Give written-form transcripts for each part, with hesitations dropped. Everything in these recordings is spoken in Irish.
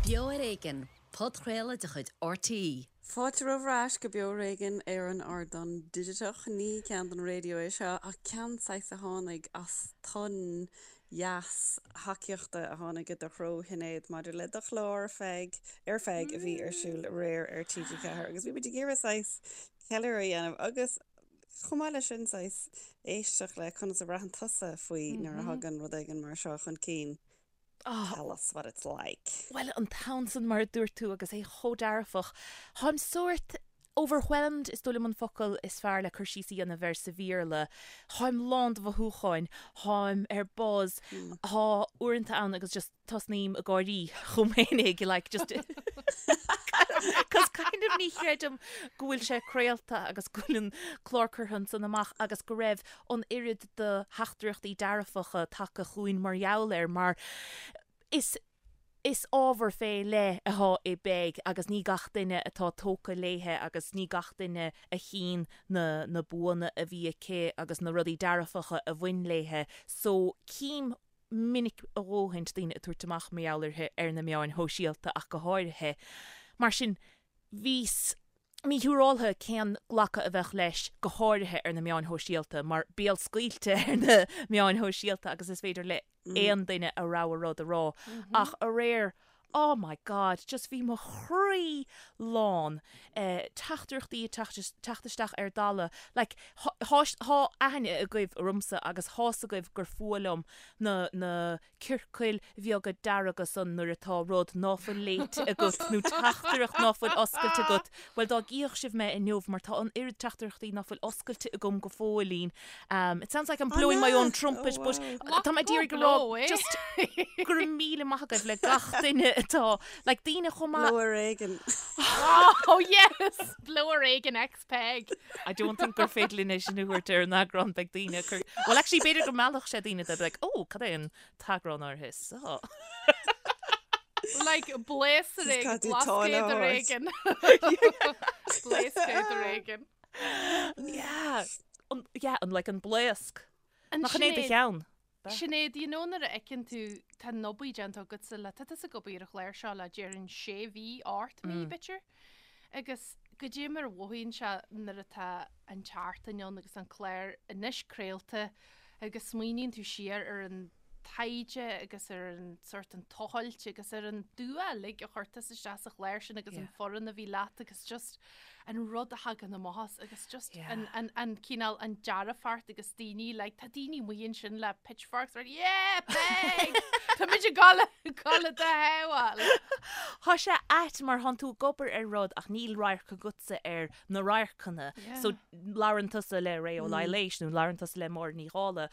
Beo ar Éigean, podchraoladh de chuid RTÉ. Fáilte romhaibh ar ais go Beo ar Éigean ar an ardán digiteach. Ní ceann don raidió é seo ach ceann saghas a tháinig as tonn dheas thacaíochta a tháinig i do threo Shinéad maidir le do chlár Peig ar Peig a bhí ar siúl aréir ar TG4 agus bhí muid ag iarraidh saghas ceiliúradh a dhéanamh agus chomh maith leis sin saghas éisteacht le conas a bhraitheann tusa faoi nuair a thagann rud éigin mar seo chun cinn. Tell us what it's like. Bhuel, an tonn san mar a dúirt tú agus é chomh dearfach. Táim sórt overwhelmed is dóigh liom an focal is fearr le cur síos a dhéanamh air sa Bhéarla. Táim lán de mhothúcháin, táim ar buzz, tá uaireanta ann agus just tosnaím ag gáirí chomh minic like just cos kind of ní chreidim go bhfuil sé craolta agus go bhfuil an clár curtha ansan amach agus go raibh an oiread de theachtaireachtaí dearfacha tagtha chugainn mar gheall air mar is is ábhar fé leith atá i bPeig agus ní gach duine atá tógtha léithe agus ní gach duine a chíonn na na buanna a bhí aici agus na rudaí dearfacha a bhain léithe so cím minic a dhóthaint daoine ag tabhairt amach mar gheall uirthi ar na meáin shóisialta ach go háirithe. Mar sin, bhíos míshiúráltha cén glacadh a bheadh leis, go háirithe ar na meáin shóisialta, mar béalscaoilte ar na meáin shóisialta agus is féidir le aon duine a rogha rud a rá. Ach aréir, oh my God, just bhí mo chroí lán, teachtaireachtaí ag teacht isteach ar dalladh, like, thá aithne agaibh ormsa agus thá's agaibh gur fuath liom na, na ciorcail bheaga dearga san nuair atá rud ná fuil léite agat nó teachtaireacht ná fuil oscailte agat, bhuel dá gcífeadh sibh mé inniu mar tá an oiread teachtaireachtaí ná fuil oscailte agam go fóillín. It sounds like I'm blowing my own trumpet but tá mé ag iarraidh go rá just go raibh míle maith agaibh le gach duine atá like daoine chomh maith. Blow ar éigean. Oh yes! Blow ar éigean X Peig. I don't think gur féidir linn é sin a thabhairt ar an eagrán beidh daoine ag cur Well actually b'fhéidir go meallfadh sé daoine they'd be like oh cad é an t-eagrán áirithe seo. Like blaos ar éigean, blascaod ar éigean. Blaoscaod ar éigean. Yeah. An, yeah, an, like an blaosc. Nach in é do cheann? Sinéad, you know nuair a fheiceann tú, tá an obair déanta agatsa le, tá tusa ag obair ar an chlár seo le déarfainn sé mhí, ocht mí, b'fhéidir. Agus goidé mar a mhothaíonn sé nuair atá an tseachtain ann agus an clár anois craolta agus smaoiníonn tú siar ar an taighde agus ar an sort an tochailt agus ar an dua uilig a chuir tusa isteach sa chlár sin agus an foireann a bhí leat agus just an rud a thagann amach as agus just an, an, an cineál an dearfacht agus daoine like tá daoine amuigh ansin le pitchforks right yeah Peig Tá muid ag gabháil gabháil do shábháil. Tá sé ait mar thánn tú ag obair ar rud ach níl radharc agatsa ar na radharcanna. So labhrann tusa le Ré Ó Laighléis nó labhrann tusa le Máire Ní Dhálaigh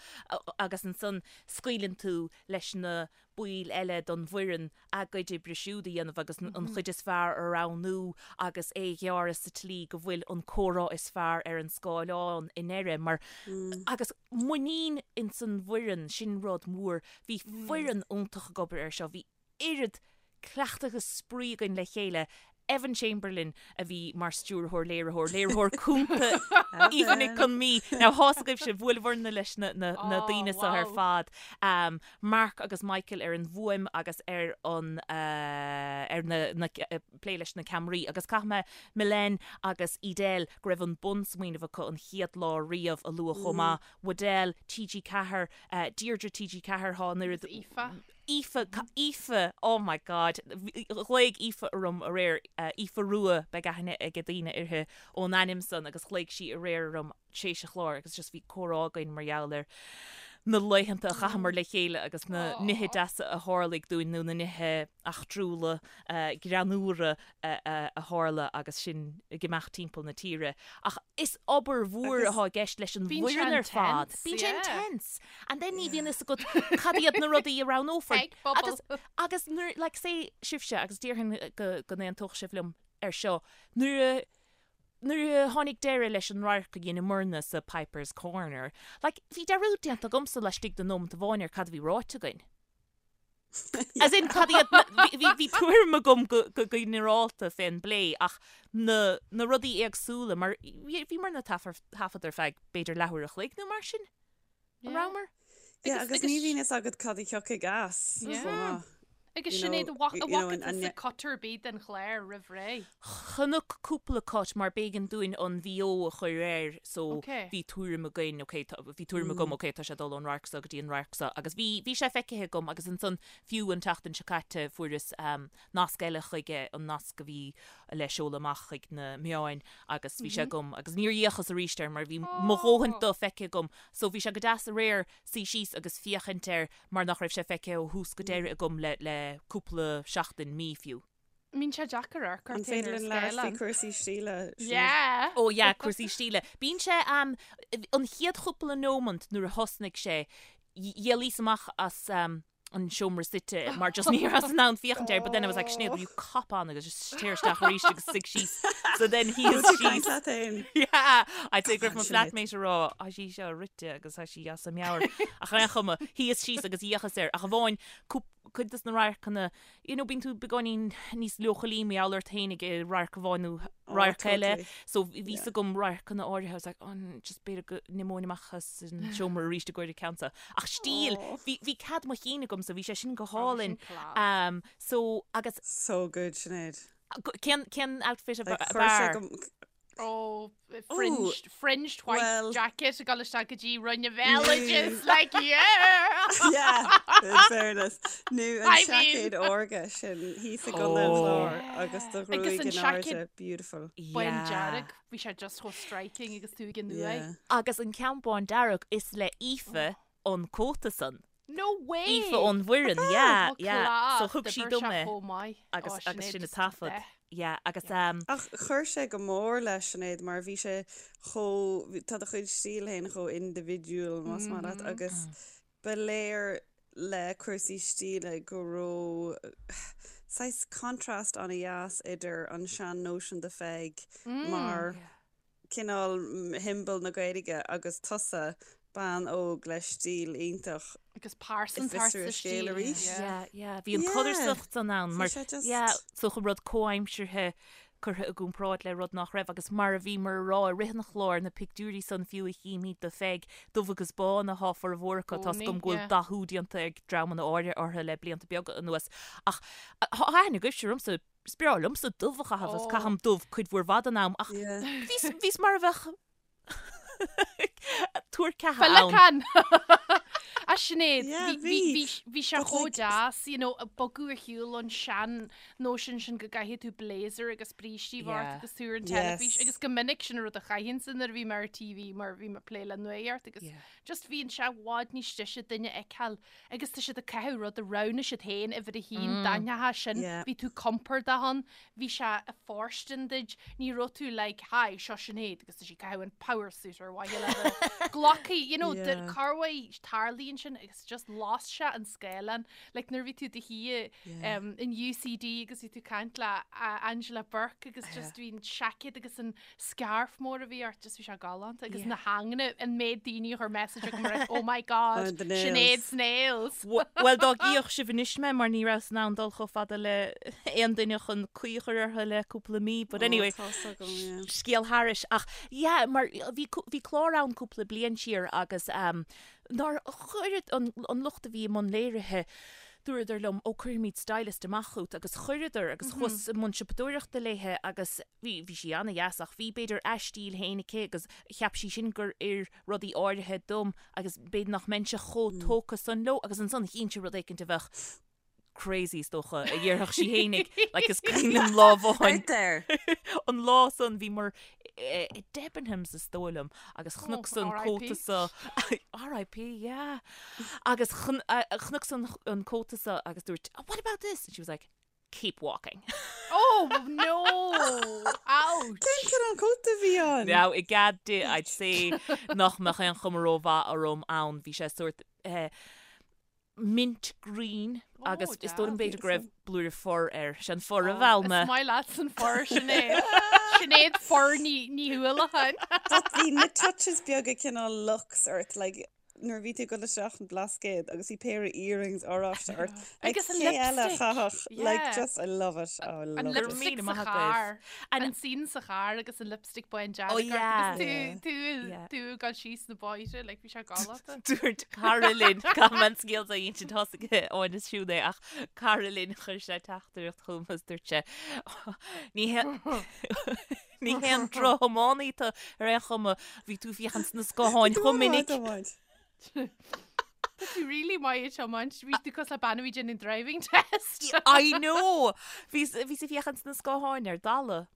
agus ansan scaoileann tú leis na baill eile den bhfoireann a gcuid oibre siúd a dhéanamh agus an chuid is fearr a roghnú agus é a ghearradh sa tslí go bhfuil an comhrá is fearr ar an scáileán i ndeireadh mar agus muinín ins an bhfoireann, sin rud mór. Bhí foireann iontach ag obair air seo, bhí oiread cleachtadh agus spraoi againn le chéile. Evan Chamberlain a bhí mar stiúrthóir, léiritheoir, léiritheoir cúnta Aoife Nic Con Mí. Now thá's agaibhse, bhuaileabhairne leis na daoine seo ar fad. Mark agus Michael ar an bhfuaim agus ar an ar na plé leis na ceamaraí. Agus caithfidh mé Mylène agus Edel go raibh an bunsmaoineamh acu an chéad lá riamh a lua chomh maith. Waddell, TG4, Deirdre TG4, thá an oiread. Aoife. Aoife, Aoife, oh my God, ghlaoigh Aoife orm aréir, Aoife Rua, beidh aithne ag daoine uirthi ón ainm san agus ghlaoigh sí aréir orm tar éis an chláir agus just bhí comhrá againn mar gheall ar na laethanta a chaitheamar le chéile agus na nithe deasa a tharlaigh dúinn nó na nithe eachtrúla, greannmhara a tharla agus sinn ag imeacht timpeall na tíre. Ach is obair mhór atá i gceist leis an bhfoireann ar fad. Bíonn sé intense. And then ní bhíonn fhios agat cad iad na rudaí a roghnófar. Agus, agus nuair, like say sibhse, agus déarfainn go, go n-aontódh sibh liom ar seo, nuair a, nuair a tháinig deireadh leis an radharc a dheineamarna sa Piper's Corner, like bhí dearúd déanta agamsa laistigh de nóimeant amháin ar cad a bhí ráite againn. As in, cad iad na, bhí, bhí tuairim agam go, go ginearálta fén bplé ach na, na rudaí éagsúla mar bhí, bhíomarna ag taifead ar feadh b'fhéidir leathuair a chloig nó mar sin. An rabhamar? Yeah, agus ní bhíonn fhios agat cad a thiocfaidh as chomh maith. Agus Sinéad, an bhfaca tusa cut ar bith den chlár roimh ré? Chonac cúpla cut mar b'éigean dúinn an VO a chur air so bhí tuairim againn, ok, bhí tuairim agam, ok, tá sé ag dul ón radharc seo go dtí an radharc seo agus bhí, bhí sé feicthe agam agus ansan fiú an tseachtain seo caite fuaireas nasc eile chuige, an nasc a bhí le seoladh amach chuig na meáin agus bhí sé agam agus níor fhéachas arís air mar bhí mo dhóthain de feicthe agam so bhí sé go deas aréir suí síos agus féachaint air mar nach raibh sé feicthe ó thús go deireadh agam le le cúpla seachtain, mí fiú. Bíonn sé deacair amharc An ort féin féidir ar linn labhairt faoi scáileán. cúrsaí stíle, Sinéad? Yeah! Ó yeah, cúrsaí stíle. Bíonn sé, an chéad chúpla nómant nuair a thosnaigh sé, d'éalaíos amach as an seomra suite mar just ní rabhas in ann féachaint air but then I was like Sinéad will you cop on agus just téir isteach arís agus suigh síos so then shuíos Caint síos leat féin. Yeah, I'd say go raibh mo Come on, Sinéad. flatmate ag rá tá sí seo rite agus tá sí as a meabhair ach ar aon chuma shuíos síos agus d'fhéachas air ach amháin cuid des na radharcanna you know bíonn tú beagáinín níos leochailí mar gheall ort féin ag radharc amháin nó Oh, radharc eile totally. so bhí Yeah. fhios agam radharcanna áirithe I was like oh just b'fhéidir go n-imeoinn amach as an seomra arís i gcomhair an ceann seo ach stíl Oh. bhí bhí cead mo chinn agam so bhí sé sin go Oh, hálainn sin class. um, so agus So good, Sinéad. cén cén outfit a Like, b- chuir sé b'fhearr? go Oh, Ooh, fringed, fringed white well, jacket ag dul isteach go dtí Roinn an nó Bhéaloidis, like, yeah! Yeah, in fairness. Nó an I mean, seaicéad órga sin thíos i gContae an Oh. Chláir agus do agus ghruaig an in seaicéad airde, beautiful. bán Yeah. dearg, bhí sé just chomh striking agus tú ag an uaigh. Yeah. Agus an ceann bán dearg is le Aoife an cóta san. No way! Aoife ón bhfoireann, yeah, Oh, yeah. So class, thug sí d'oibir dom sé é chomh maith. agus Oh, agus Sinéad sin a just taifead. the Yeah, agus Yeah. um, Ach chuir sé go mór leis Sinéad mar bhí sé chomh, tá do chuid stíl féin chomh indibhidiúil más maith leat agus ba léir le cúrsaí stíle go raibh saghas contrast an-dheas idir an sean-nóisean de Pheig mar cineál shiombail na Gaeilge agus tusa, bean óg le stíl iontach Agus i pearsantacht bhfiosrú sa a scéal stíl. arís. Yeah. Yeah, yeah. Bhí an Yeah. codarsnacht san ann Bhí mar sé just. yeah, so chun rud comhaimseartha curtha i gcomparáid le rud nach raibh agus mar a bhíomar a rá i rith an chláir na pictiúirí san fiú a chímid de Pheig dubh agus bán athá formhór acu tá 's Gcónaí, agam go bhfuil yeah. dathú déanta ag dreamanna áirithe orthu le blianta beaga anuas ach thá aithne agaibhse ormsa Is breá liomsa dubh a chaitheamh agus caithim dubh cuid mhór mhaith den am ach bhíos, bhíos mar a bheadh tuar ceatha ann. Féileacán! A Sinéad, Yeah, bhí, bhí, bhí. bhí, bhí sé But chomh like, deas, you know, bogadh ar shiúl ón sean nóisean sin go gcaithfidh tú blazer agus brístí a bheith ort Yeah. agus tú ar an teilifís yes. agus go minic sin an rud a chaithinnse nuair a bhí mé ar TV mar bhí mé ag plé le nuacht agus Yeah. just bhíonn sé i bhfad níos deise duine a fheiceáil Agus tá siad ag caitheamh rud a roghnaigh siad féin uimhir a haon, d'aithneofá sin, bhí tú compordach ann, bhí sé ag fóirstean duit, ní raibh tú like hi, seo Sinéad agus tá sí ag caitheamh an power suit ar mhaithe le bheith glactha, you know, corruair tarlaíonn sin agus just las sé an scáileán, like nuair a bhí tú i do shuí in UCD agus bhí tú ag caint le Angela Bourke agus just bhí an seaicéad agus an scarf mór a bhí ort, just bhí sé galánta agus na hanganna an méid daoine a chuir message agam ar oh my god, Oh, the nails. Sinéad's nails. Bhuel dá gcífeadh sibh anois mé mar ní rabhas in ann dul chomh fada le aon duine chun caoi a chur orthu le cúpla mí but Oh, anyway tá's agam, yeah. scéal thairis ach yeah mar bhí bhí clár ann cúpla bliain siar agus um, nár chuir an, an lucht a bhí i mbun léirithe dúradar liom ó cuirfimid stylist amach chugat agus chuireadar agus chuas i mbun siopadóireachta léithe agus Bhí, bhí sí ana-dheas ach bhí, b'fhéidir, a stíl féin aici agus cheap sí sin gur oir rudaí áirithe dom agus b'fhéidir nach mbeinnse chomh tógtha san leo agus ansan chínnse rud éicint a bheadh crazy is dócha a dhéarfadh sí fhéinig like is cuimhin liom lá amháin Out there! an lá san bhíomar i Debenhams is dóigh liom agus chonac an cóta so RIP yeah agus chonac an cóta so agus dúirt oh, what about this and she was like keep walking. Oh no! Ouch! Cén cineál cóta a bhí ann? Now, i gcead di, I'd say nach mbeadh aon chuma rómhaith orm ann. Bhí sé sórt eh, mint green agus Oh, is dóigh liom deas. b'fhéidir go raibh blúire fur air. Sé an fur a mheall mé. Is maith leat an fur, Sinéad. Sinéad Fur Ní, Ní Uallacháin. But bhí na touches beaga cineál luxe ort, like, nuair a bhí tú ag dul isteach an Blascaod agus bhí péire earrings oráiste ort. Like, Agus an cé eile a lipstick. chaithfeadh? Like, Yeah. just, I love it. Oh, I An love it. lipstick Míle sa maith agaibh. charr. An- An scene sa charr agus an lipstick bán dearg Oh, ort yeah. agus tú tú Yeah. tú ag dul síos na bóithre, like bhí sé galánta. Dúirt cara linn caithfidh mé an scéal a insint thosaigh Áine Siún é ach cara linn chuir sé teachtaireacht chugam agus dúirt sé ní hé Ní haon drochthiománaí tú ar aon chuma, bhí tú ag féachaint sna scátháin chomh minic. Tá tú really maith ag tiomáint, bhí tú cosúil le bean a bhí ag déanamh driving test. I know! Bhí bhíos ag féachaint sna scátháin ar dalladh.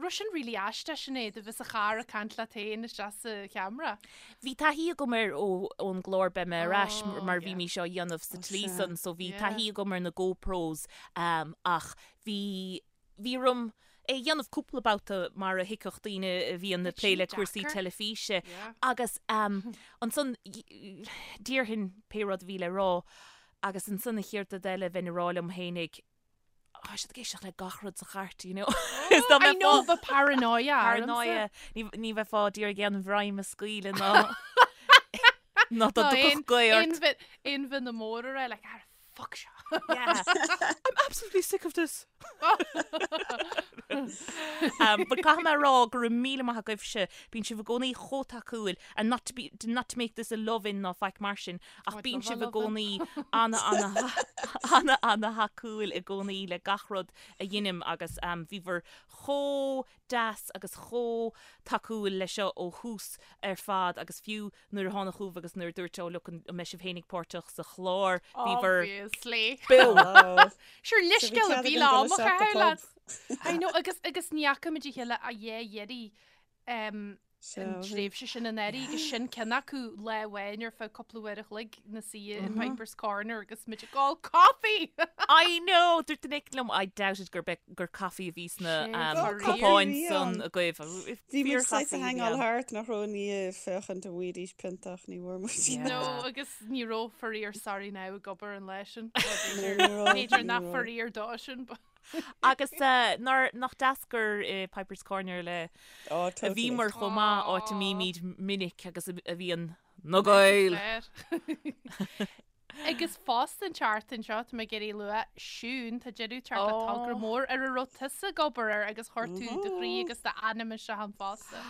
Raibh sin really aisteach Sinéad, a bheith sa charr ag caint leat féin isteach sa cheamara. Bhí taithí agam air ó ón gclár Beidh Mé Ar Ais Oh, mar bhí yeah. mise á dhéanamh sa tslí sea. san so bhí Yeah. taithí agam ar na GoPros um, ach bhí Bhí orm é a dhéanamh cúpla babhta mar a thuigfeadh daoine a bhíonn ag plé le cúrsaí teilifíse agus ansan déarfainn pé rud a bhí le rá agus ansan an chéad rud eile bheinn ag rá liom fhéinig tá siad ag éisteacht le gach rud sa chairt, you know. Is dá I know, bheadh paranoia ormsa. Paranoia. Ní bheifeá d'iarraidh aon bhroim a scaoileadh ná ná dá dtiocfadh gaoth ort. Aon mhionn mór a rá, like, ah, fuck seo. Yeah. I'm absolutely sick of this. um, but caithfidh mé a rá go raibh míle maith agaibhse, bíonn sibh i gcónaí chomh tacúil and not to be, not to make this a love-in ná faic mar sin, ach I'd bíonn love a sibh i love-in. gcónaí ana ana ana ana thacúil i gcónaí le gach rud a dheinim agus um, bhíobhair chomh deas agus chomh tacúil le seo ó thús ar fad agus fiú nuair a tháinig chugaibh agus nuair a dúirt oh look an mbeidh sibh fhéinig páirteach sa chlár bhíobhair Obviously. beo. Sure leithscéal a Bhí bhí cead le againn dul am a isteach go chaitheamh pub. leat. I know agus agus ní fhaca muid a chéile a dhé dheiridh um, an tréimhse sin anuraidh agus sin ceann acu lá amháin ar feadh cúpla uair a chloig inár suí in Piper's Corner agus muid ag ól coffee! I know! Dúirt duine éicint liom I doubt it gur gur caife a bhí sna cupáin san agaibh. Bhí muid saghas ag hangáil thart nach raibh i ndiaidh féachaint an bhfaighidís pionta ach ní bhfuair muid. No, agus ní raibh faraor sorry now ag obair an lá sin. B'fhéidir nach faraor dó sin. Agus nach deas gur i Piper's Corner le a bhíomar chomh maith áit a mbímid minic agus a bhíonn na Gaeil. Agus fosta an tseachtain seo, tá mé ag iarraidh lua, Siún, tá deireadh ag teacht le togra mór ar a raibh tusa ag obair air agus chuir tú do chroí agus d'anam isteach ann fosta.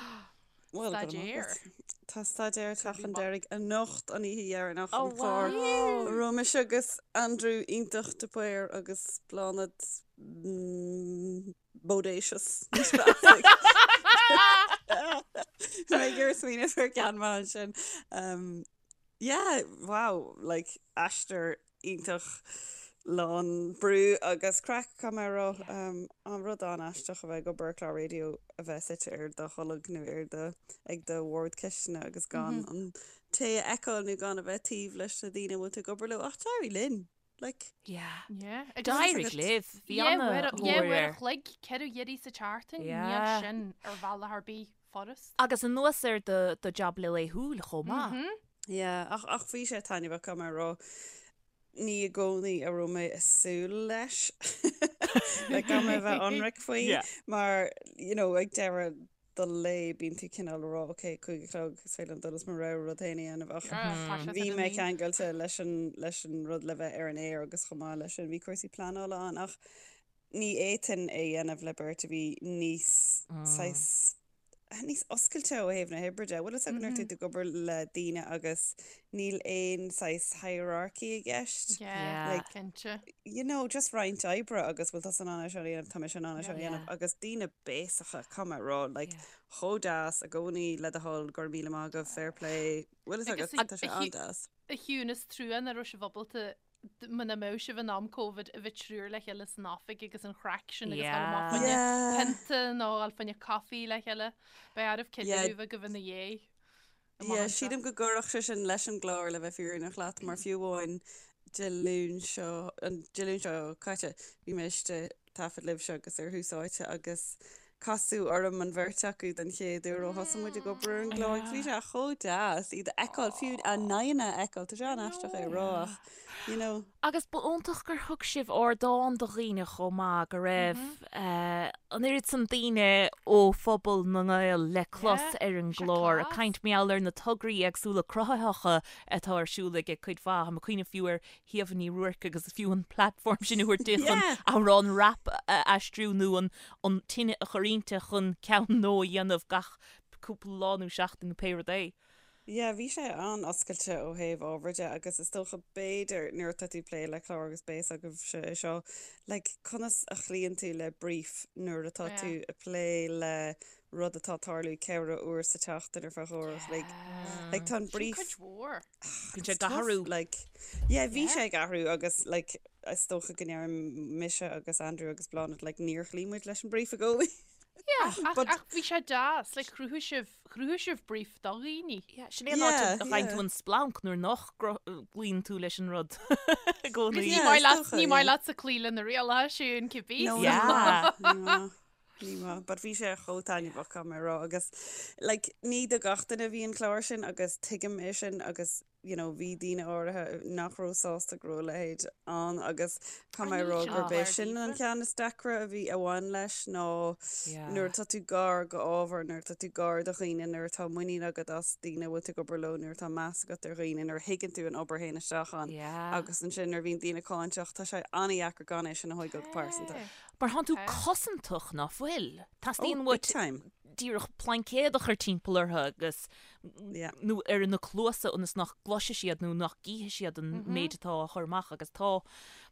Bhuel, go raibh maith Staidéar. agat. Tá staidéar ag teacht chun deiridh anocht, an oíche dheireanach, Oh, an clár. wow. A raibh mise agus Andrew iontach de Paor agus Bláthnaid Bodacious. Níos fearr. Mé ag iarraidh smaoineamh ar ceann maith ansin. Um, Yeah, wow, like aistear iontach lán brú agus craic, caithfidh mé a rá. Um, an rud an-aisteach a bheith ag obair ar chlár raidió a bheith suite ar do tholg nó ar do, ag do bhord cistine agus gan an té a fheiceáil nó gan a bheith taobh leis na daoine a bhfuil tú ag obair leo. Ach d'éirigh linn, like. Yeah. Yeah. D'éirigh libh. Bhí Dhá an-thóir uair a air. chloig, 4 iarraidh sa tseachtain, níl Yeah. sin ar bhealach ar bith furast. Agus anuas ar do do jab laethúil chomh maith. Yeah, ach ach bhí sé taitneamhach, caithfidh mé a rá. Ní i gcónaí a raibh mé ag súil leis. Like, caithfidh mé a bheith ionraic faoi, Yeah. mar, you know, ag deireadh do lae bíonn tú cineál ag rá, ok, 5 a chlog, is féidir liom dul is mo rogha rud féin a dhéanamh ach bhí mé ceangailte leis an leis an rud le bheith ar an aer agus chomh maith leis sin bhí cúrsaí pleanála ann ach ní fhéadfainn é a dhéanamh le beirt a bhí níos saghas níos oscailte ó thaobh na hoibre de. Bhfuil fhios agat nuair atá tú ag obair le daoine agus níl aon saghas hierarchy i gceist. Yeah, Like, cinnte. you know, just roinnt oibre agus bhfuil tusa in ann é seo a dhéanamh, tá mise in ann é seo a dhéanamh agus daoine béasacha, caithfidh mé a rá, like, chomh deas i gcónaí le do thoil, go raibh míle maith agaibh, fair play, bhfuil fhios agat, tá sé an-deas. A Shiún, is trua nach raibh sibh ábalta muna mbeadh sibh in am Covid a bheith triúr le chéile san oifig agus an chraic sin agus dul amach fá choinne pionta nó dul fá choinne caife le chéile. Beidh oraibh ceiliúradh a bheith agaibh ina dhiaidh. Yeah, sílim go gcuirfeadh sé sin leis an gclár le bheith fírinneach leat mar fiú amháin Dé Luain seo, an Dé Luain seo caite, bhí mé istigh ag taifead libhse agus ar Thús Áite agus. Casadh orm an bheirt acu den chéad uair ó thosaigh muid ag obair ar an gclár agus bhí sé chomh deas iad a fheiceáil, fiú a n-aghaidheanna a fheiceáil, tá sé an-aisteach é a rá ach, you know. Agus ba iontach gur thug sibh ardán do dhaoine chomh maith, go raibh an oiread san daoine ó phobal na nGael le clos ar an gclár, ag caint mar gheall ar na tograí éagsúla cruthaitheacha atá ar siúl ag cuid mhaith. Tá mé ag cuimhneamh fiú ar Shíomha Ní Ruairc agus fiú an platform sin a thabhairt di chun amhrán rap a aistriú nó an an tine a chur inti chun ceann nua a dhéanamh gach cúpla lá nó seachtain nó pé rud é. Yeah, bhí sé an-oscailte ó thaobh ábhair de agus is dócha b'fhéidir nuair atá tú ag plé le clár agus beidh a fhios agaibhse é seo, like conas a chloíonn tú le brief nuair atá tú ag plé le rud atá ag tarlú ceithre uair sa tseachtain ar feadh uair a chloig. Like tá an brief. Sin cuid mhór. Bíonn sé ag athrú. Like, yeah, bhí sé ag athrú agus like is dócha go ndeirim mise agus Andrew agus Bláthnaid like níor chloígh muid leis an brief i gcónaí. Yeah, ach, ach bhí sé deas, like chruthaigh sibh, chruthaigh sibh brief do dhaoine. Yeah, sin é an áit a bhfaigheann tú an splanc nuair nach gcloíonn tú leis an rud i gcónaí. Ní maith leat, ní maith leatsa cloí le na rialacha sin, cibé. No, yeah. Ní maith. Ní maith, but bhí sé chomh taitneamhach caithfidh mé a rá agus like ní do gach duine a bhí an clár sin agus tuigim é sin agus you know bhí daoine áirithe nach raibh sásta go raibh a leithéid ann agus caithfidh mé a rá gurb é sin an ceann is deacra a bhí a bhain leis ná nuair atá tú gar go ábhar, nuair atá tú gar do dhaoine, nuair atá muinín agat as daoine a bhfuil tú ag obair leo, nuair atá meas agat ar dhaoine, nuair a thuigeann tú an obair a théann isteach ann agus ansin nuair a bhíonn daoine cáinteach tá sé an-dheacair gan é sin a thógáil go pearsanta. Mar thánn tú cosantach, ná fuil? Teastaíonn uait díreach plaincéad a chur timpeall orthu agus, nó ar na cluasa ionas nach gcloisfidh siad nó nach gcífidh siad an méid atá á chur amach agus tá,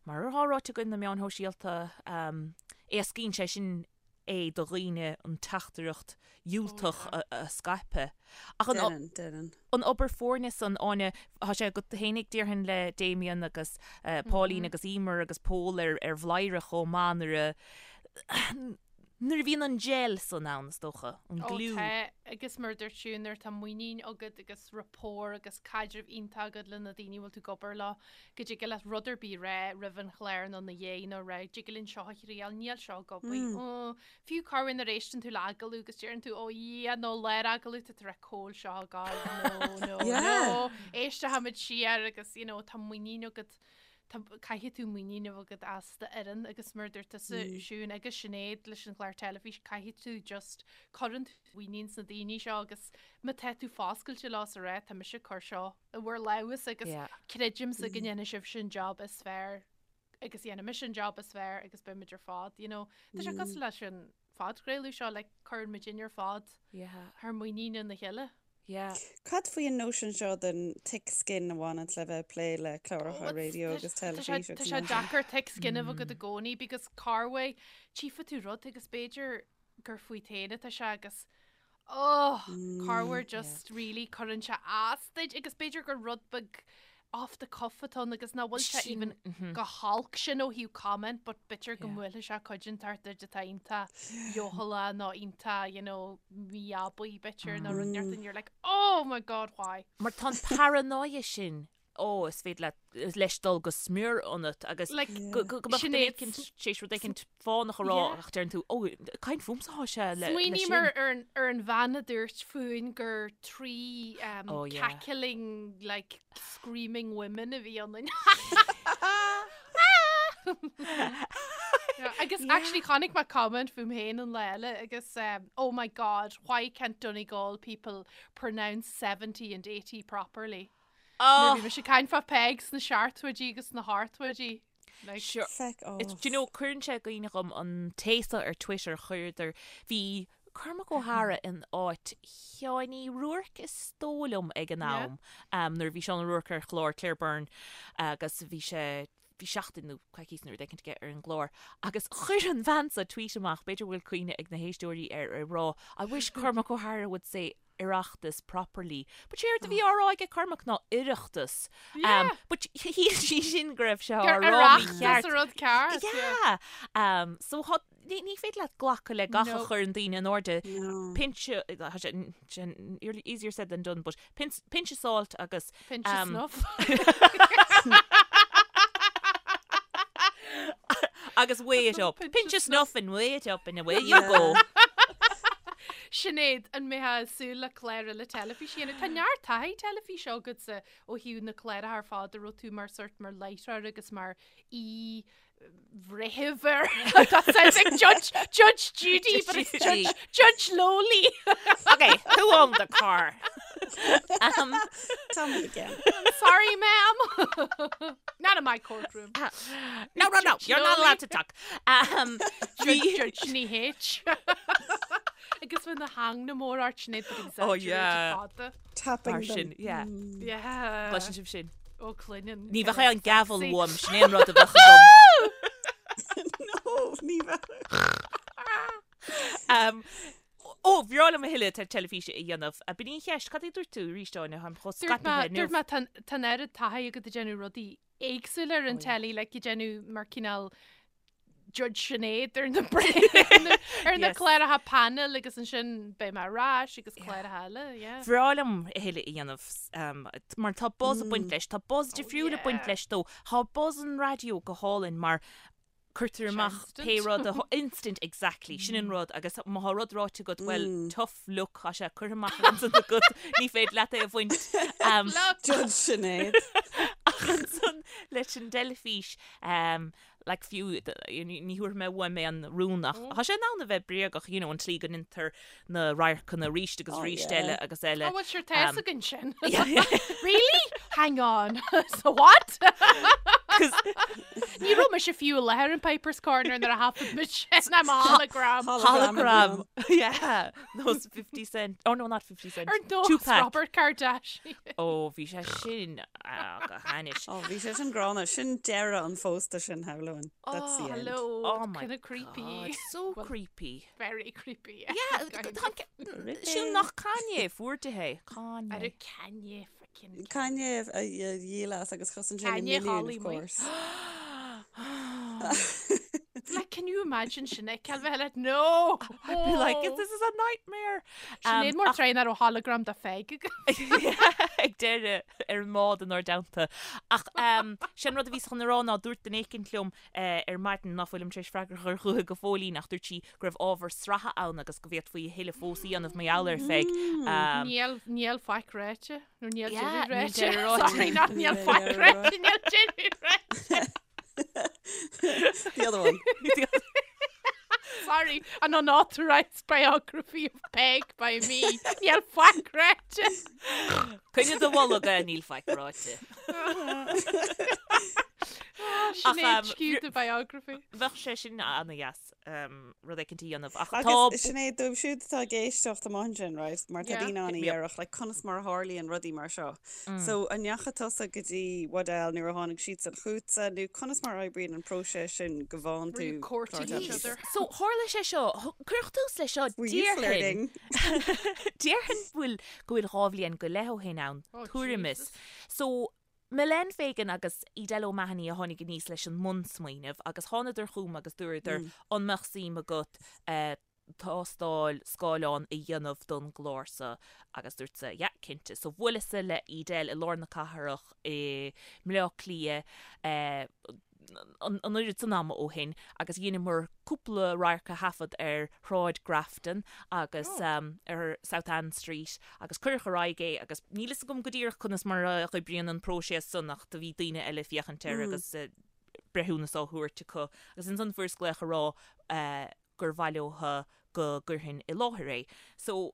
mar atá ráite againn, na meáin shóisialta, éascaíonn sé sin é do dhaoine an teachtaireacht dhiúltach a scaipeadh. Ach an. Déanann. an obair foirne san, Áine, tá sé agat fhéinig déarfainn le Damien agus Pauline agus Emer agus Pól ar ar Bhladhaire chomh maith nuair a nuair a bhíonn an gel san ann is dócha, an Ó glue. tá, agus mar a dúirt tú, nuair atá muinín agat agus rapport agus caidreamh iontach agat le na daoine a bhfuil tú ag obair leo, go dtig leat rud ar bith a rá roimh an chlár nó ina dhiaidh nó rá, dtig linn seo a thriail, níl seo ag obair, ó, Fiú corruair nuair a éisteann tú le agallamh agus deireann tú, ó Dhia, nó lár agallamh tá tú ag rá cá bhfuil seo ag gabháil, no, no, no, éistfimid siar agus, you know, tá muinín agat, tá, caithfidh tú muinín a bheith agat as d'fhoireann agus mar a dúirt tusa, Siún agus Sinéad leis an chlár teilifíse, caithfidh tú just, cuireann tú muinín sna daoine seo agus má tá tú foscailte leo is a rá, tá mise ag cur seo i bhur lámhas agus creidimse go ndéanfaidh sibhse an job is fearr. agus dhéanfaidh mise an job is fearr agus beidh muid ar fad, you know. Tá sé cosúil leis an phodchraoladh seo, like, cuireann muid inn ar fad Yeah. thar muinín ina chéile. Yeah. Cad faoi an nóisean seo den thick skin a bhaineann le bheith ag plé le cláracha raidió agus teilifíse Tá agus sé mar sin? deacair thick skin a bheith agat i gcónaí because corruair tchífidh tú rud agus b'fhéidir gur fút féin atá sé agus oh, corruair just really cuireann sé as duit agus b'fhéidir gur rud beag off the cuff atá ann agus nach bhfuil sé even chomh holc sin ó thaobh comment but b'fhéidir go mbuailfidh sé cuid inteacht duit atá iontach leochaileach nó iontach you know mí-abaí b'fhéidir nó rud inteacht and you're like oh my god why? Mar tá an paranoia sin ó, is féidir leat, leis dul go smior ionat agus Like, go go go mbeadh sin duine é. éicint tar éis rud éicint fánach a rá Yeah. ach deireann tú, ó, caint fúmsa atá sé le, le Smaoiním sin. ar, ar, an, ar an bhean a dúirt fúinn gur trí um, Oh, yeah. cackling, like, screaming women a bhí ionainn. Yeah, agus actually chonaic mé comment fúm féin an lá eile agus um, oh my god, why can't Donegal people pronounce 70 and 80 properly? Nuair a bhí mise ag caint fá Peig sna seachtóidí agus sna hochtóidí. Like, Sure. Feck off. It's, do you know, cuireann sé i gcuimhne dhom an té seo ar Twitter, chuireadar, bhí Cormac Ó hEára in áit Sheáin Uí Ruairc is dóigh liom ag an Yeah. am, um, nuair a bhí Seán Ó Ruairc ar chlár Claire Byrne agus bhí sé, bhí seachtain nó coicís nó rud éicint aige ar an gclár agus chuir an bhean seo tweet amach, b'fhéidir go bhfuil cuimhne ag na héisteoirí air, ag rá, I wish Cormac Ó hEára would say Oireachtas properly. But séard a bhí á rá aige Cormac ná Oireachtas. Yeah. But shíl sí sin go raibh sé á Gur rá Oireachtas mícheart. an rud ceart. Yeah. Um, so thá, ní, ní féidir leat glacadh le gach a No. chuireann daoine in airde. No. Pinch, tá sé, sin easier said than done, but pinch, pinch of salt agus Pinch of um, snuff. agus weigh it up. Pinch of snuff and weigh it up and away you go. Sinéad, an mbeifeá ag súil le clár eile teilifíse a dhéanamh? Tá neart taithí teilifíse agatsa ó thaobh na cláracha ar fad a raibh tú mar sort mar láithreoir agus mar aoi bhreitheamh ar That sounds like Judge, Judge Judy, but it's Judge, Judge Lowly. Okay, who owned the car? Um, Tell me again. Sorry, ma'am. Not in my courtroom. no, no, no, you're not allowed to talk. Um, Judge, Judge Ní H. Agus bhí na hang na mór art sin but Oh, yeah. fada. Tapping Mar them. sin, yeah. Yeah. Gleiseann sibh sin. Ó cluineann. Ní bheadh an gavel uaim, sin é an rud a bheadh agam. No, ní bheadh. Um, Ó, bhreá liom a thuilleadh teilifíse a dhéanamh. B'in í an cheist, cad é dúirt tú arís, Áine, táim chomh Dúirt mé, scaipthe inniu. dúirt mé tá an oiread taithí agat ag déanamh rudaí éagsúla ar an telly, like ag déanamh mar cineál Judge Sinéad ar na ar na cláracha panel agus ansin beidh mé ar ais agus cláracha eile, yeah. Bhreá liom a thuilleadh a dhéanamh mar tá buzz ag baint leis, tá buzz difriúil ag baint leis dó. Tá buzz an raidió go hálainn mar cuirtear amach pé rud a instant exactly, sin an rud agus má tá rud ráite agat, well tough luck, tá sé curtha amach ansan agat, ní féidir leat é a bhaint. Judge Sinéad. Ach ansan leis an dteilifís, like fiú, ní thabharfaidh mé uaim é an rún ach tá sé in ann a bheith bréagach, you know, an tslí go ndéantar na radharcanna arís agus Oh, arís yeah. eile agus eile. Oh, well, sure, tá fhios againn sin. Really? Hang on. So what? Ní raibh mise fiú i láthair in Piper's Corner nuair a thaifead muid sin I'm a hologram. Hologram. Yeah. Nós 50 cent. Oh no, not 50 cent. Ar nós Tupac. Robert Kardashian. Ó, bhí sé sin ah, go hainnis. Ó, bhí sé sin gránna. Sin deireadh an phósta sin, shamhlóinn. That's the end. Hello. Oh my Kind of creepy. God, so creepy. Very creepy. Yeah. Yeah, Sin nach Kanye fuair di é. Kanye. Ar Kanye freaking. Kanye a dhíol as agus chosain sé na Kanye milliún, Holly of Moy. course. Like, can you imagine Sinéad Cal bheith like, no! I'd be like, this is a nightmare. Sinéad mór tréan ar ó hologram da Pheig. Ag deireadh ar an mbád inár dteannta. Ach sin rud a bhíos chun a rá ná dúirt duine éicint liom ar maidin ná fuilim tar éis freagra a chur chuici go fóillín ach dúirt sí go raibh ábhar sraithe ann agus go bhféadfaí a thuilleadh fós a dhéanamh mar gheall ar Pheig. Níl, níl faic ráite, nó níl Yeah, deireadh níl ráite. deireadh ráite. Sorry, not níl Níl faic deireadh ráite, níl deireadh ráite. The other one. Sorry, an unauthorized biography of Peig by me. Níl faic ráite. Coinnigh do bholg é, níl faic ráite. Sinéad skewed the biography. Bheadh sé sin ana-dheas rud éicint a dhéanamh ach tá. Agus Sinéad, dóibh siúd atá ag éisteacht amach ansin, right, mar tá Yeah. daoine ann a Hit me up. dhéarfadh, like, conas mar a tharlaíonn rudaí mar seo. So, an ndeachaigh tusa go dtí Waddell nuair a tháinig siadsan chughatsa, nó conas mar a oibríonn an próiseas sin go bhfaigheann Were you tú courting clár each teilifíse? other? So, tharla sé seo, cuireadh tús leis seo, Were you déarfainn, flirting? déarfainn bhfuil, go bhfuil 2 bhliain go leith ó shin ann, Oh, tuairim is. Jesus. So, Milene Fegan agus Edel O'Mahony a tháinig aníos leis an mbunsmaoineamh agus thánadar chugam agus dúradar an mbeadh suim agat tástáil scáileáin a dhéanamh don gclár seo agus dúrtsa yeah cinnte. So bhuaileas-sa le Edel i lár na cathrach i mBleá Cliath an oiread san ama ó shin agus dheineamar cúpla radharc a thaifead ar Shráid Grafton agus ar South Anne Street agus cuireadh ar aghaidh é agus níl fhios agam go díreach conas mar a oibríonn an próiseas san ach do bhí daoine eile ag féachaint air agus breithiúnas á thabhairt acu agus ansan fuaireas glaoch a rá gur mhaith leotha go gcuirfinn i láthair é. So,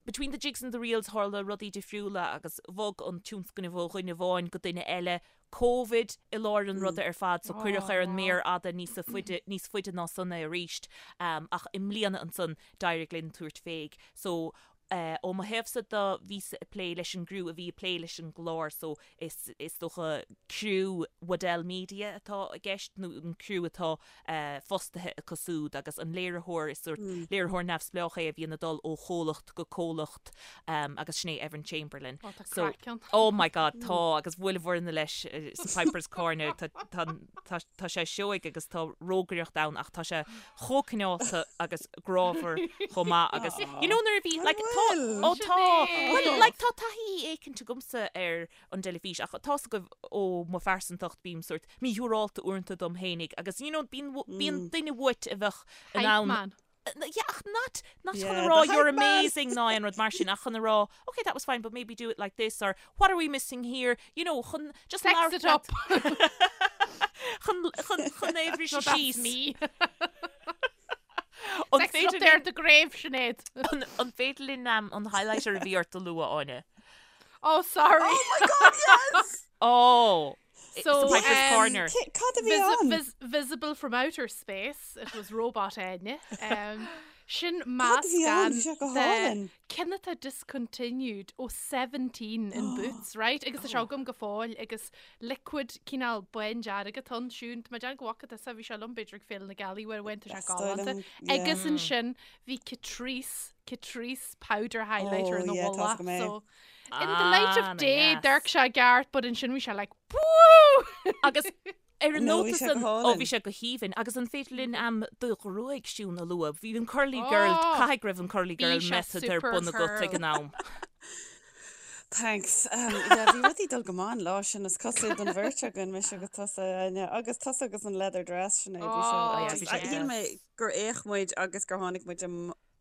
between the jigs and the reels tharla rudaí difriúla agus bhog an tionscnamh ó dhuine amháin go duine eile, Covid i lár an ruda ar fad so cuireadh ar an méar fhada níos faide níos faide ná san é arís ach i mbliana ansan d'éirigh linn tabhairt féig so ó mo thaobhsa do bhíos-sa ag plé leis an gcriú a bhí ag plé leis an gclár so is is dócha criú Waddell Media atá i gceist nó an criú atá fostaithe acu súd agus an léiritheoir is sórt léiritheoir neamhspleách é a bhíonn ag dul ó chomhlacht go comhlacht agus sin é Evan Chamberlain. Ó, tá So, craic ann. oh my god, tá agus bhuaileamar leis sa Piper's Corner tá tá tá tá sé seoigh agus tá rógaireacht ann ach tá sé chomh cineálta agus grámhar chomh maith agus you know nuair a bhí like tá ó tá well like tá taithí éicint agamsa ar an dteilifís ach tá's agaibh ó mo phearsantacht bím sórt míshiúrálta uaireanta dom fhéinig agus you know bíonn bíonn duine uait a bheadh in Hype ann man. Yeah, ach not, not chun a rá you're amazing ná aon rud mar sin, ach chun a rá, okay, that was fine, but maybe do it like this, or what are we missing here? You know, chun just Sex it up. Chun, chun, chun é a bhriseadh síos. síos. me. An Sex it up féidir there linn, at the grave, Sinéad. an, an féidir linn um, an highlighter a bhí ort a lua, Áine? Oh, sorry. Oh my God, yes! Oh! So, Sa Piper's um, Corner. Cad a bhí Visi ann? vis visible from outer space, it was robot Áine. Um, sin Cad a bhí ann? meascán Bhí sé go de hálainn. ceann atá discontinued ó 17 in Boots, right? Agus tá sé agam go fóill agus liquid cineál bándearg atá ann siún. Tá mé ag déanamh go bhfaca tusa, bhí sé liom b'fhéidir ag Féile na Gealaí uair amháin, tá sé Is dóigh galánta. liom, yeah. Agus ansin bhí Catrice, Catrice powder highlighter Oh, ina yeah, tá mhullach, agam é. so In the light Ah, of day, yes. d'amharc sé i gceart, but ansin bhí sé like, Woo! Agus ar an No, bhí nóta sé go san, ó hálainn. bhí sé go haoibhinn, agus an féidir linn am do ghruaig Siún a lua? Bhí an curly girl, Oh, caithfidh go raibh an curly bhí girl sé method ar super bun agat ag curl. an am. Thanks. Um, yeah, bhí rudaí dul go maith an lá sin is cosúil don bheirt againn, mise agus tusa, Áine, agus tusa agus an leather dress sin é, bhí sé Oh, yeah, just, bhí sé shíl mé deas. gur fhéach muid agus gur tháinig muid am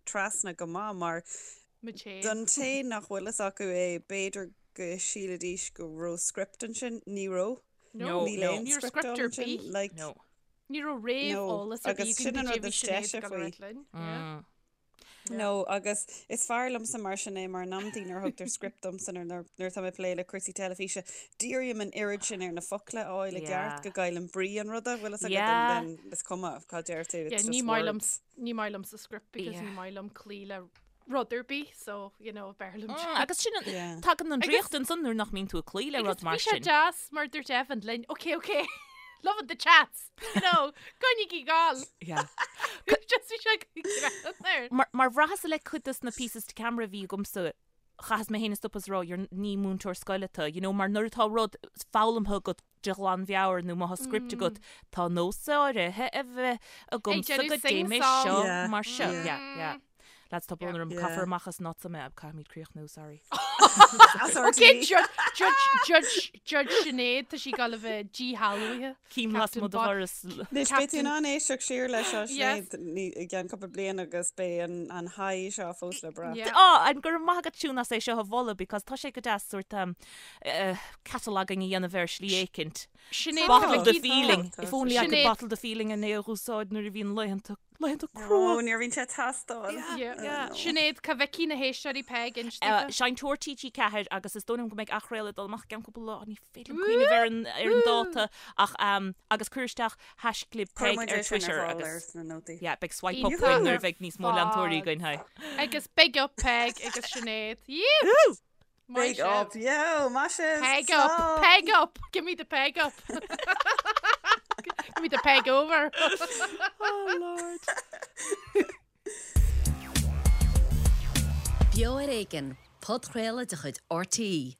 trasna go maith mar Mo té. Don té nach bhfuil fhios acu é, b'fhéidir go sílfidís go raibh script ansin. Ní raibh. No, Níl no. aon Ní raibh script script ar ansin. bith. Like, No. Ní raibh no. réamheolas ar bith Agus againn sin an go rud dtí bhí is Sinéad deise ag dul faoi. ar linn. Yeah. Mm. Yeah. No, agus is fearr liomsa mar sin é mar in amantaí nuair a thugtar script domsa nuair nuair atá mé ag plé le cúrsaí teilifíse, dírím an oiread sin ar na focla a fháil i Yeah. gceart go gcaillim brí an ruda, bhfuil fhios agat, Yeah. and then is cuma cad deir tú, Yeah, it's ní just maith liom words. ní maith liomsa script because Yeah. ní maith liom cloí le rud ar bith, so, you know, b'fhearr liom. Mm, agus sin an- Yeah. tagann an Agus- draíocht ansan nuair nach mbíonn tú ag cloí le Agus rud mar bhí sé sin. deas mar dúirt Evan linn, ok, ok, loving the chats, you know, coinnigí ag gabháil. Yeah. Just bhí sé greann air. Mar, mar bhraitheas le cuid dos na pieces to camera a bhí agamsa, chaitheas mé féin a stop is rá, you're ní múinteoir scoile tú, you know, mar nuair atá rud foghlamtha agat de ghlanmheabhair nó má tá script agat, tá nós áirithe a bheith agamsa déanamh go dté mé sing-song. seo Yeah, mar seo. yeah. Yeah, yeah. Lads, tá brón orm, Yeah. caithfear amach as not mé, caithfimid críochnú, sorry. As Ok, RTÉ. judge, judge, judge, judge Sinéad, tá sí ag gabháil a bheith díshealbhaithe. Cím las Captain mo do Bo- dhoras. Anois, beidh tú in ann éisteacht siar leis seo, Yes. Sinéad, ní- i gceann cúpla bliain agus beidh an, an high seo fós le brath. Yeah. Á, an go raibh maith agat Siún as é seo a mholadh because tá sé go deas sort um, uh, cataloguing a dhéanamh ar shlí éicint. Sinéad, Bottle tá the mé feeling. Tá. If only I could Sinéad. bottle the feeling an é a úsáid nuair a bhíonn laethanta laethanta Ó, crua. níor bhíonn sé teastáil. Yeah. Yeah. Sinéad, cá bhfeicfidh na héisteoirí Peig Uh, inste. Seinnteoir TG4 agus is dóigh liom go mbeidh athchraoladh ag dul amach i gceann cúpla lá, ní féidir liom cuimhneamh ar an, ar an dáta ach um, agus cuir isteach haischlib Cuir Peig muid ar é sin ar Twitter fáil agus ar sna nótaí. yeah, beidh swipe up Iontach againn nuair ar a bheidh níos mó leantóirí fad. againn, hi. Agus big up Peig agus Sinéad. Yee! Maith Big sibh. up, yo, maith sibh. Peg up, Slán. peg up, give me the peg up. give me the peg over. Oh Lord. Beo ar Éigean, podchraoladh de chuid RTÉ.